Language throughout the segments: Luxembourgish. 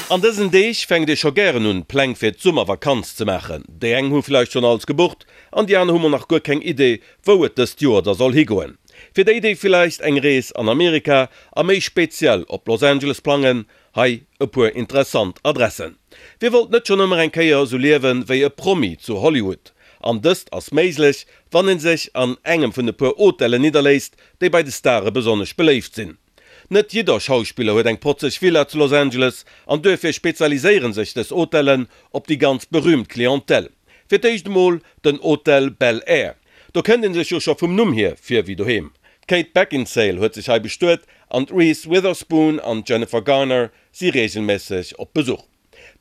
An dësen Deeg fänkt ee scho gären un, Pläng fir d'Summervakanz ze maachen. Déi eng hu vläicht schonn alles gebucht an déi aner hu mol nach guer keng Idee, wou et dëst Joer da soll higoen. Fir déi, déi villäicht eng Rees an Amerika a méi speziell op Los Angeles plangen, hei e puer interessant Adressen. Wie wollt net schonn ëmmer eng Kéier esou liewen wéi e Promi zu Hollywood? An dëst ass méiglech, wann ee sech an engem vun e puer Hotellen nidderléisst, déi bei de Stare besonnesch beléift sinn. Net jidder Schauspiller huet eng protzeg Villa zu Los Angeles an duerfir spezialiséiere sech dës Hotellen op déi ganz berüümt Clientèle. Fir d'éischt emol den Hotel Bel Air. Do kënnt ee sech jo scho vum Numm hier vir wéi doheem. D'Kate Beckinsale huet sech hei bestuet an d'Reese Witherspoon an d'Jennifer Garner si reegelméisseg op Besuch.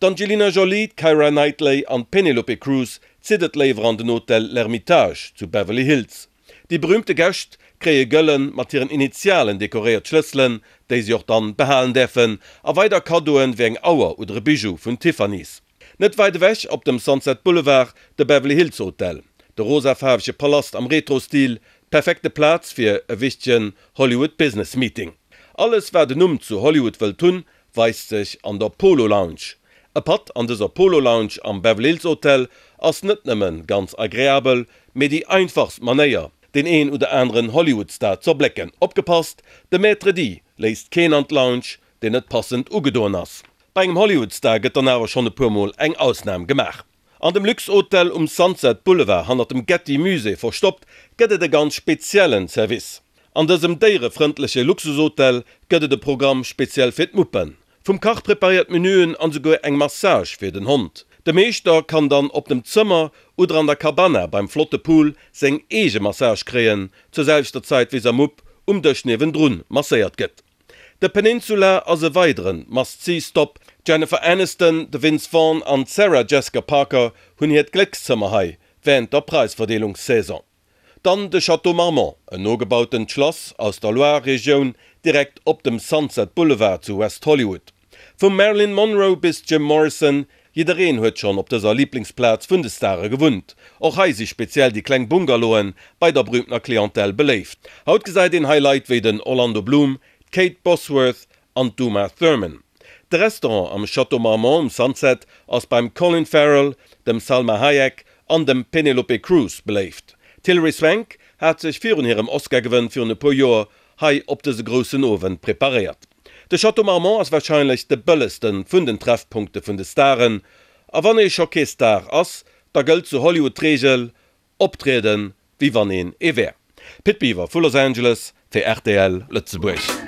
D'Angelina Jolie, d'Keira Knightley an d'Penelope Cruz zitt et léiwer an den Hotel L'Ermitage zu Beverly Hills. Déi berühmte Gäscht kréie gëllen, mat hiren Initialen dekoréiert Schlësselen, déi si och dann behalen däerfen, a weider Kaddoen wéi eng Auer oder e Bijou vun Tiffany's. Net wäit ewech op dem Sunset Boulevard de Beverly Hills Hotel, de rosafaarwege Palast am Retro-Stil, d'perfekte Plaz fir e wichtegen Hollywood Business Meeting. Alles wat en Numm zu Hollywood wëllt hunn, weist sech an der Polo Lounge. E Patt an dëser Polo Lounge am Beverly Hills Hotel ass net nëmmen ganz agreabel, mee déi einfachst Manéier, deen een oder aneren Hollywood-Star z'erblécken. Opgepasst, de Maître D' léisst keen an d'Lounge, deen net passend ugedoen ass. Bei engem Hollywood-Star gëtt dann awer schonn e puer Mol eng Ausnam gemaach. An dem Luxhotel um Sunset Boulevard, hannert dem Getty Musée verstoppt, gëtt et e ganz speziellen Service. An dësem déierefrëndleche Luxushotel gëtt et e Programm speziell fir d'Muppen. Vum Kach preparéiert Menüen an souguer eng Massage fir den Hond. De Meeschter kann dann op dem Zëmmer oder an der Cabana beim flotte Pool seng eege Massage kréien, zur selwechter Zäit wéi sa Mupp um Dësch niewendrun masséiert gëtt. De Peninsula ass e weideren Must-See-Stop. D'Jennifer Aniston, de Vince Vaughn an d'Sarah Jessica Parker hunn hiert Gléckszëmmer hei wärend der Praisverdeelungssaison. Dann de Château Marmont, en nogebautent Schlass aus der Loire-Regioun, direkt op dem Sunset Boulevard zu West Hollywood. Vum Marilyn Monroe bis Jim Morrison, jiddereen huet schonn op dëser Liblingsplaz vun de Stare gewunnt. Och hei si speziell déi kleng Bungalowen bei der berühmtener Clientèle beléift. Haut gesäit een hei Leit wéi den Orlando Bloom, d'Kate Bosworth an d'Uma Thurman. De Restaurant am Château Marmont um Sunset ass beim Colin Farrell, dem Salma Hayek an dem Penelope Cruz beléift. D'Hilary Swank hat sech virun hirem Oscar-Gewënn virun e puer Joer hei op dëse groussen Owend preparéiert. De Château Marmont ass warscheinlech de bëllegste vun den Treffpunkte vun de Staren. A wann ee scho kee Star ass, da gëllt zu Hollywood d'Reegel, Optrieden, wéi wann een ee wär. Pit Biwer vu Los Angeles fir rtl Lëtzebuerg.